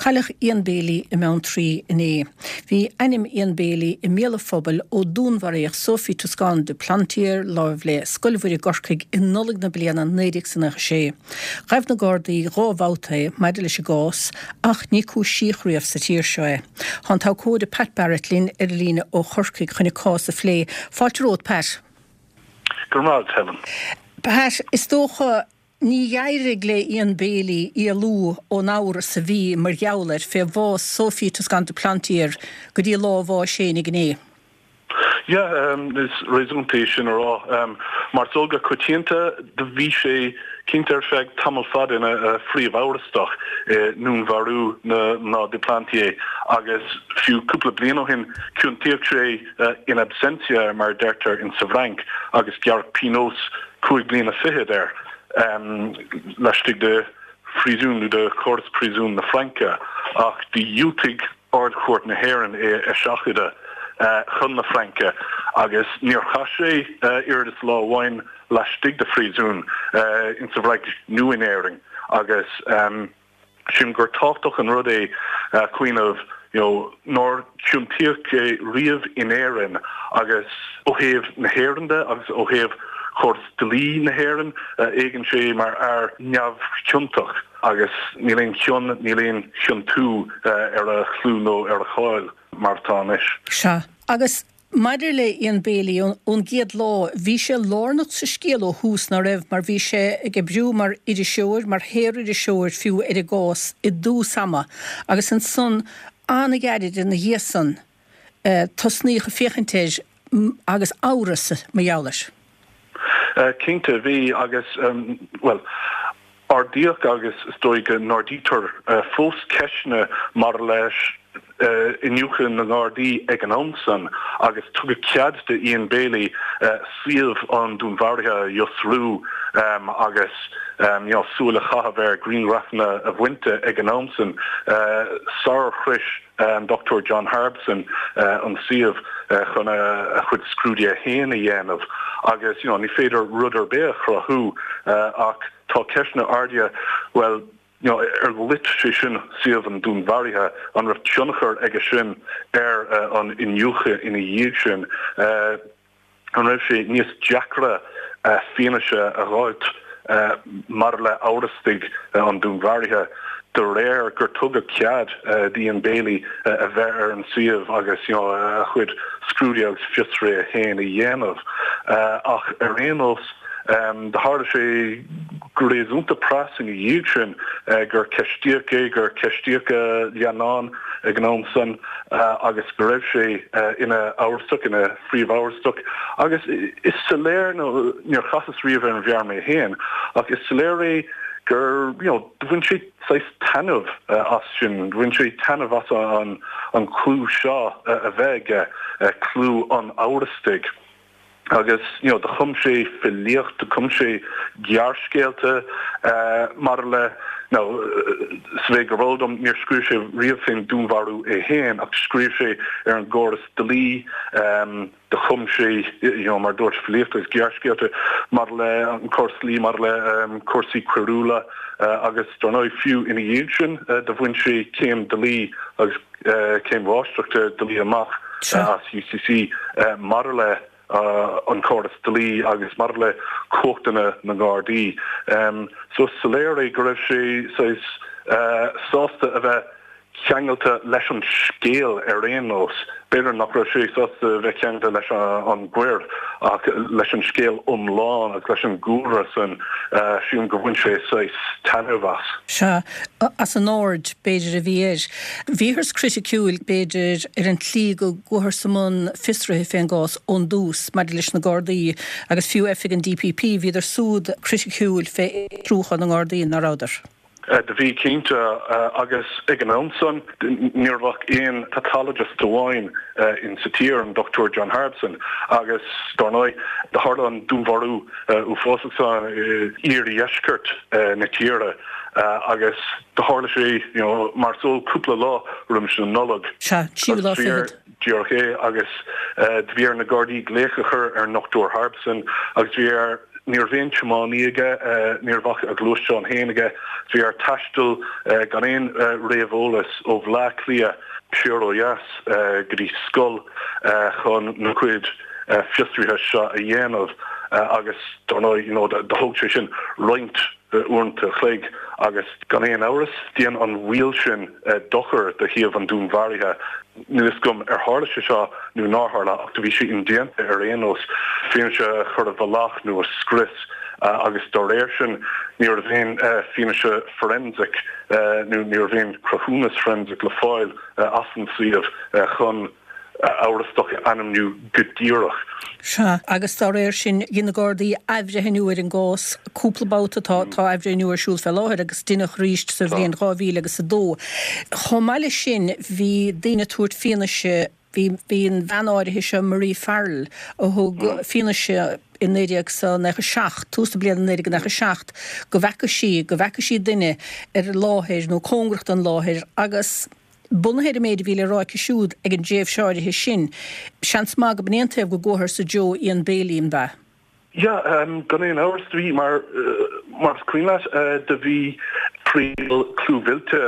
Cailleadh Ian Bailey i mBeanntraí inné. Bhí ainm Ian Bailey i mbéal an phobail ó dúnmharaíodh Sophie Toscan du Plantier láimh le Scoil Mhuire i gCorcaigh i Nollaig na bliana 1996. Ghabh na Gardaí 2 bhabhta é maidir leis an gcás ach ní cúisíodh riamh sa tír seo é. Tá an t-abhcóide Pat Barrett linn ar an líne ó Chorcaigh chun an cás a phlé. Fáilte romhat, Pat. Go raibh maith agat, Helen. Pat, is dócha Ní d'éirigh le Ian Bailey éalú ón amhras a bhí mar gheall air fé bhás Sophie Toscan du Plantier go dtí lá a bháis fhéinig inné. Yeah, is réasúnta é sin a rá. Mar is eol go coitianta, do bhí sé cinnte ar feadh tamall fada ina phríomh-amhrastach i ndúnmharú na mná du Plantier agus fiú cúpla bliain ó shin ciontaíodh sé in absentia mar a deirtear in sa bhFrainc agus gearradh pionós 5 bliana fichead air laistigh de phríosún nó de chóras príosúin na Fraince ach do dhiúltaigh Ard-Chúirt na hÉireann é a eiseachadadh chun na Fraince agus níor chaith sé oiread is lá amháin laistigh de phríosún insa bhFrainc nó in Éirinn agus Sílim gur tábhachtach an rud é cuimhneamh you know nár ciontaíodh é riamh in Éirinn agus ó thaobh na hÉireann de agus ó thaobh chóras dlí na hÉireann, éagann sé mar fhear neamhchiontach agus níl aon chion, níl aon chiontú ar a chlú nó ar a cháil mar atá anois. Sea. Agus Maidir le Ian Bailey, ón gcéad lá, bhí sé lárnach sa scéal ó thús, ná raibh, mar bhí sé ag oibriú mar iriseoir, mar shaoririseoir fiú, ar an gcás i dtús ama agus ansan an-ghairid ina dhiaidh san tosnaíodh ag féachaint air agus amhras mar gheall air. Cinnte, bhí agus, bhuel, Ardaíodh agus is dóigh go n-ardaítear fós ceisteanna maidir leis iniúchadh na nGardaí ag an am san agus tugadh cead do Ian Bailey suíomh an dúnmharaithe a fhiosrú agus súil a chaitheamh ar ghrianghrafanna a bhaint de ag an am san sarar shrois an Dr John Harbison an suíomh chun a chuid scrúduithe féin a dhéanamh agus you know ní féidir rud ar bith a chruthú ach tá ceisteanna ardaithe, bhuel you know ar loit sé sin suíomh an dúnmharaithe, an raibh tionchar aige sin ar an iniúchadh ina dhiaidh sin? An raibh sé níos deacra fianaise a dh'fháilt maidir le amhrastaigh an dúnmharaithe de réir gur tugadh cead d'Ian Bailey a bheith ar an suíomh agus a chuid scrúduithe agus fiosruithe féin a dhéanamh? Ach ar aon nós, Do tharla sé go réasúnta pras ina dhiaidh sin gur ceistíodh é, gur ceistíodh a leannán ag an am san agus go raibh sé ina amhrastach, ina phríomhamhrastach. Agus is soiléir, nó níor chasas riamh ar an bhfear mé féin, ach is soiléir é gur, you know, do bhain sé saghas taitneamh as sin, bhain sé taitneamh as an clú seo a bheith aige, clú an amhrastaigh. Agus you know do chum sé filíocht, do chum sé gearrscéalta maidir le, now sa mhéid gurb eol dom níor scríobh sé riamh fén dúnmharú é féin ach scríobh sé ar an gcóras dlí, do chum sé you know mar dúirt filíocht agus gearrscéalta maidir le an córas dlí, maidir le cúrsaí coiriúla agus dar ndóigh fiú ina dhiaidh sin do bhain sé céim dlí agus céim mháistreachta dlí amach as UCC maidir le an córas dlí agus maidir le cumhachtanna na nGardaí. So is soiléir é go raibh sé saghas sásta a bheith ceangailte leis an scéal ar aon nós. B'fhéidir nach raibh sé sásta a bheith ceangailte leis an gcoir ach leis an scéal iomlán agus leis an gcúlra san, sílim gur bhain sé saghas taitneamh as. Sea, as an aird, b'fhéidir, a bhí air. Bhíothas criticiúil, b'fhéidir, ar an tslí go gcuathas i mbun fiosraithe fén gcás ón dtús maidir leis na Gardaí agus fiú oifig an DPP, bhíodar súd criticiúil fé fhiosrúchán na nGardaí, ná rabhadar? Do bhí, cinnte, agus ag an am san ní raibh ach aon pathologist amháin in sa tír, an Dr John Harbison, agus dár ndóigh do tharla an dúnmharú uafásach san i iardheisceart na tíre agus do tharla sé, you know, mar is eol, cúpla lá roimis an Nollaig. Sea, tríú lá fichead. Díreach é, agus do bhí ar na Gardaí glaoch a chur ar an nDr Harbison agus bhí ar. Ní raibh aon tiománaí aige, ní raibh ach a ghluaisteán féin aige. Bhí air taisteal gan aon réamheolas ó Bhleá Cliath siar ó dheas go dtí scoil chun na cuid fiosruithe seo a dhéanamh agus dar ndóigh you know do thóg sé sin roinnt uaireanta a chloig agus gan aon amhras dhein an mhoill sin dochar do shuíomh an dúnmharaithe. Níl fhios agam ar tharla sé seo nó nár tharla ach do bhí sé indéanta ar aon nós fianaise a chur i bhfolach nó a scrios agus dá réir sin ní raibh aon fianaise forensic nó ní raibh aon cruthúnas forensic le fáil as an suíomh chun amhrastach a ainmniú go díreach. Sea, agus dá réir sin, dhein na Gardaí athbhreithniú ar an gcás cúpla babhta, tá tá athbhreithniú ar siúl fé láthair agus deineadh arís sa bhliain 2000 agus 2. Chomh maith leis sin, bhí daoine ag tabhairt fianaise, bhí bhí an bhean áirithe seo, Marie Farrell, a thug fianaise i 1997, tús na bliana 1997, go bhfeaca sí, go bhfeaca sí duine ar an láthair nó cóngarach don láthair agus, Bunaithe ar an méid a bhí le rá aici siúd ag an dtréimhse áirithe sin, seans maith go b'in é an taobh go gcuathar sa dtreo Ian Bailey, an b'ea? Yeah, gan aon amhras, do bhí, mar, mar is cuimhin leat, do bhí triail clúmhillte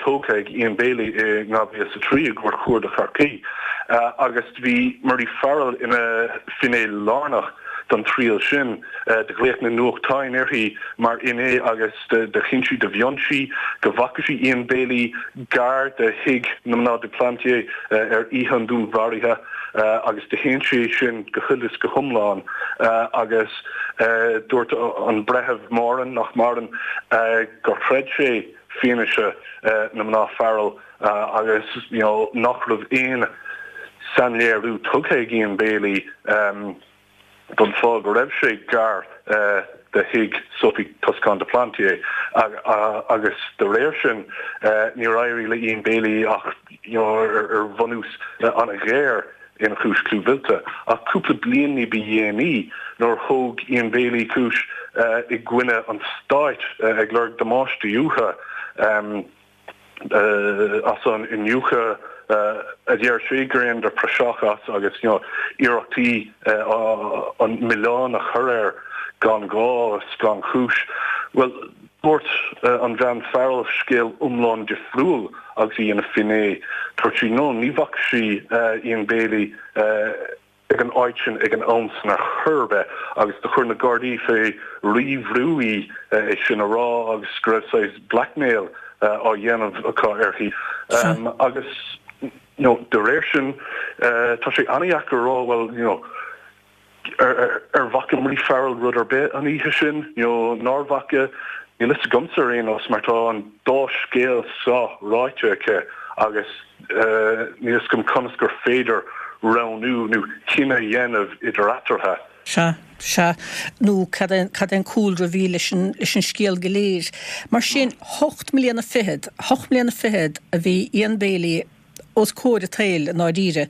tógtha ag Ian Bailey i 2003 i gCúirt Chuarda Chorcaí agus do bhí Marie Farrell ina finné lárnach don triail sin. Do ghlaoch na nuachtáin uirthi mar fhinné agus do chinn sí, do mhion sí go bhfaca sí Ian Bailey gar do thigh na mná du Plantier ar oíche an dúnmharaithe agus do shéan sé sin go huile is go hiomlán agus dúirt an Breitheamh Moran, nach maireann, gur chreid sé fianaise na mná Farrell agus you know nach raibh aon sainléiriú tugtha ag Ian Bailey. don fáth go raibh sé gar do thigh Sophie Toscan du Plantier agus de réir sin níor éirigh le Ian Bailey ach ar bhunús an-ghéar ina chúis clúmhillte. Ach cúpla bliain ní ba dhéanaí nuair a thóg Ian Bailey cúis i gcoinne an stáit ag lorg damáistí uathu, as an iniúchadh a deir sé gur dheineadar praiseach as agus iarrachtaí an milleán a chur air gan ghá is gan chúis. Bhuel, dúirt an bhean Farrell scéal iomlán difriúil agus í ina finné. Dúirt sí no, ní bhfaca sí Ian Bailey ag an áit sin ag an am san ar chor ar bith agus do chuir na Gardaí fé rí-bhrú í é sin a rá agus go raibh saghas blackmail á dhéanamh acu uirthi agus you know de réir sin tá sé an-dheacair a rá bhuel you know ar ar bhfaca Marie Farrell rud ar bith an oíche sin you know nár bhfaca níl fhios agamsa ar aon nós mar tá an dá scéal seo ráite aici agus Níl fhios agam conas gur féidir roghnú nó cinneadh a dhéanamh idir eatarthu. Sea, sea. Nó cad é, cad é an cúlra a bhí leis an, leis an scéal go léir. Mar sin, hocht mbliana fichead, hocht mbliana fichead a bhí Ian Bailey os comhair an tsaoil i ndáiríre.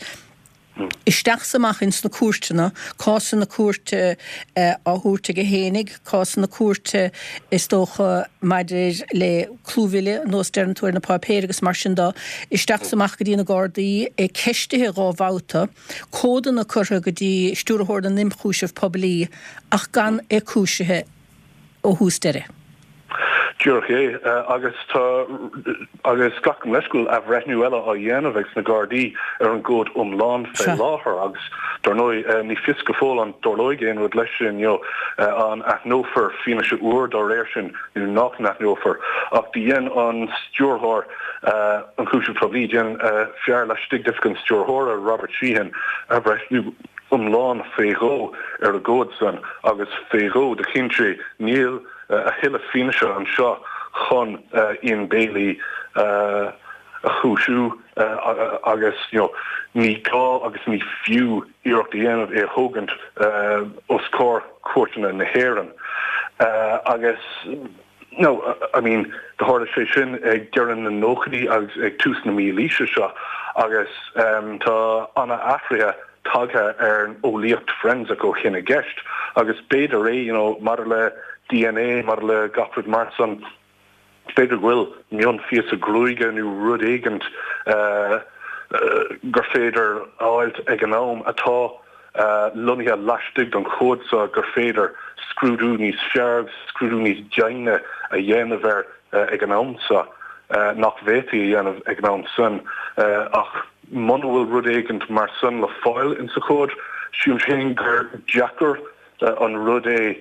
Isteach 's amach ins na cúirteanna, cásanna cúirte á thabhairt aige fhéinig, cásanna cúirte is dócha maidir le clúmhilleadh, nós deireann tú ar na páipéir agus mar sin de, isteach 's amach go dtí na Gardaí, é ceistithe dhá bhabhta, comhadanna curtha go dtí Stiúrthóir na nImchúiseamh Poiblí ach gan é cúisithe. ó thús deireadh. Díreach é. Agus tá, agus glacaim leis go bhfuil athbhreithniú eile á dhéanamh ag na Gardaí ar an gcomhad iomlán fé láthair agus dar ndóigh ní fios go fóill an dtarlóidh aon rud leis sin, you know, an aithneofar fianaise úr dá réir sin nó nach n-aithneofar. Ach do dhein an Stiúrthóir Ionchúiseamh Poiblí, dhein fear laistigh d'Oifig an Stiúrthóra, Robert Sheehan, athbhreithniú iomlán fé dhó ar an gcomhad san agus fé dhó do chinn sé níl a thuilleadh fianaise anseo chun Ian Bailey a chúisiú agus you know ní gá agus ní fiú iarracht a dhéanamh é a thógaint os comhair cúirteanna na hÉireann agus No, I mean, do tharla sé sin ag deireadh na nóchaidí agus ag tús na mílaoise seo agus tá ana-athruithe tagtha ar an eolaíocht forensic ó shin i gceist agus b'fhéidir é, you know, maidir le DNA, maidir le gach rud mar san, b'fhéidir go bhfuil mionphíosa gruaige nó rud éigint gur féidir a fháilt ag an am atá. lonnaithe laistigh den chomhad seo gur féidir scrúdú níos fearr agus scrúdú níos doimhne a dhéanamh air ag an am seo nach bhféadfaí a dhéanamh ag an am san. Ach muna bhfuil rud éigint mar san le fáil insa chomhad, sílim féin gur deacair an rud é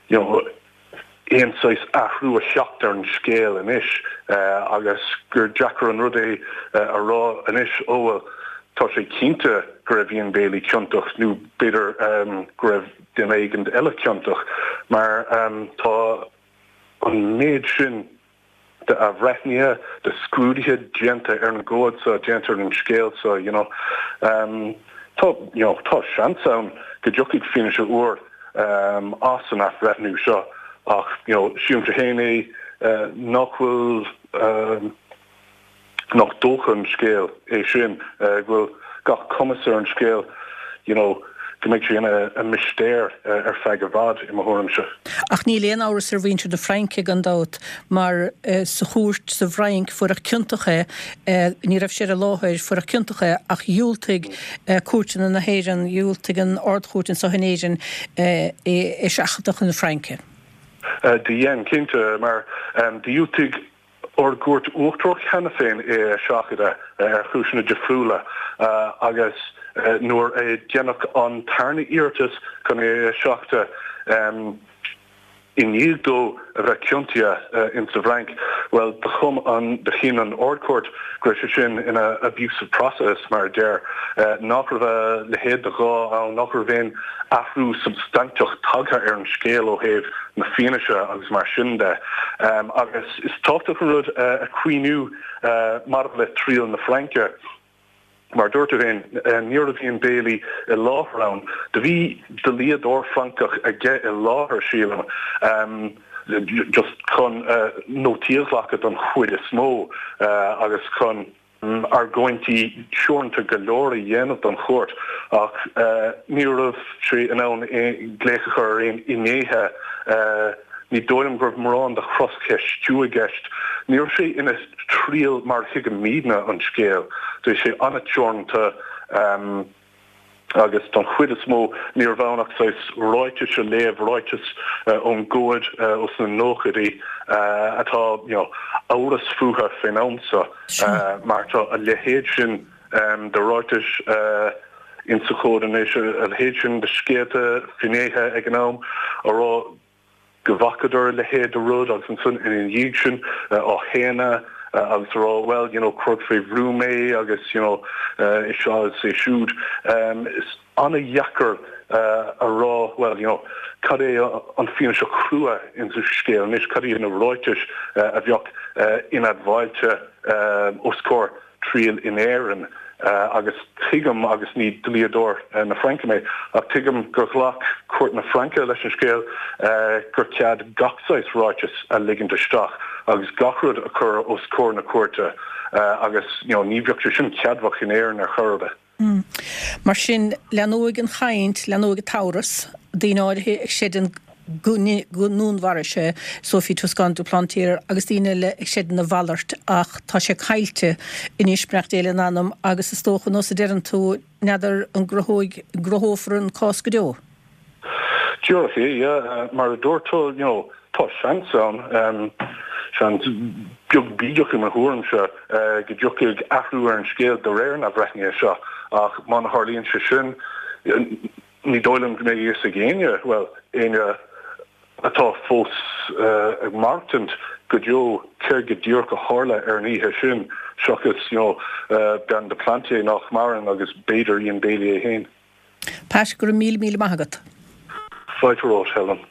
you know, aon saghas athrú a theacht ar an scéal anois agus gur deacair an rud é a rá anois, ó bhuel, tá sé cinnte go raibh Ian Bailey ciontach nó b'fhéidir go raibh duine éigin eile ciontach mar tá an méid sin de athbhreithnithe, de scrúduithe déanta ar an gcomhad seo, déanta ar an scéal seo, you know. Tá, you know, tá seans ann go dtiocfaidh fianaise úr as an athbhreithniú seo ach, you know, sílimse féin é nach bhfuil, nach dócha an scéal é sin, go bhfuil gach cumas ar an scéal, you know, go mbeidh sé ina mistéir ar feadh i bhfad, i mo thuairimse. Ach níl aon amhras ar mhuintir na Fraince, gan dabht, mar sa chúirt sa bhFrainc fuaireadh ciontach é, ní raibh sé ar an láthair, fuaireadh ciontach é ach dhiúltaigh cúirteanna na hÉireann, dhiúltaigh an Ard-Chúirt anseo in Éirinn é a sheachadadh chun na Fraince. Do dhein, cinnte, mar dhiúltaigh Ár gCúirt Uachtarach cheana féin é a sheachadadh ar chúiseanna difriúla agus nuair a deineadh an tarna iarratas chun é a sheachadadh i ndiaidh dó a bheith ciontaithe in sa bhFrainc, bhuel, do chum an, do chinn an Ard-Chúirt go raibh sé sin ina abuse of process, mar a deir, nach raibh a leithéid de ghá ann, nach raibh aon athrú substainteach tagtha ar an scéal ó thaobh na fianaise agus mar sin de. Agus is tábhachtach an rud a chuimhniú maidir le triail na Fraince, mar a dúirt tú féin, ní raibh Ian Bailey i láthair ann. Do bhí dlíodóir Francach aige i láthair, sílim, just chun nótaí a ghlacadh don chuid is mó agus chun. argóintí teoranta go leor a dhéanamh don chúirt ach ní raibh sé in ann glaoch a chur ar aon fhinnéithe. Ní dóigh liom go raibh mórán de chroscheistiú i gceist. Ní raibh sé ina thriail mar a thuigimidne an scéal. Bhí sé an-teoranta. agus don chuid is mó ní raibh ann ach saghas ráitis a léamh, ráitis ón gcomhad ós na nóchaidí atá you know amhras fúthu fén am seo mar tá a leithéid sin de ráitis insa chomhad anois, a leithéid sin de scéalta, finnéithe ag an am a rá go bhfacadar a leithéid de rud agus ansan ina dhiaidh sin á shéanadh agus a rá well you know cuireadh fé bhrú mé agus you know é seo is é siúd. Is an-dheacair a rá well you know cad é an fianaise chrua insa scéal anois, cad iad na ráitis a bheadh inadmháilte os comhair triail in Éirinn agus tuigim, agus ní dlíodóir na Fraince mé, ach tuigim gur ghlac cúirt na Fraince leis an scéal gur cead gach saghas ráiteas a ligint isteach agus gach rud a chur os comhair na cúirte agus you know ní bheadh sé sin ceadmhach in Éirinn ar chor ar bith. Mar sin, leanóidh an chaint, leanóidh an t-amhras, daoine áirithe ag creidiúint go ndúnmharaigh sé Sophie Toscan du Plantier agus daoine eile ag creidiúint a mhalairt ach tá sé caillte anois, beannacht Dé lena anam, agus is dócha, nós a deireann tú, n'fheadar an gcruthóidh, gcruthófar an cás go deo. Díreach é, yeah. Mar a dúirt tú, you know, tá seans ann, seans beag bídeach i mo thuairimse, go dtiocfaidh athrú ar an scéal de réir an athbhreithnithe seo ach má tharlaíonn sé sin, ní dóigh liom go mbeidh a fhios ag éinne, bhuel, éinne atá fós ag maireachtaint go deo céard go díreach a tharla ar an oíche sin seachas, you know, bean du Plantier nach maireann agus b'fhéidir Ian Bailey é féin. Pat, go raibh míle míle maith agat. Fáilte romhat, Helen.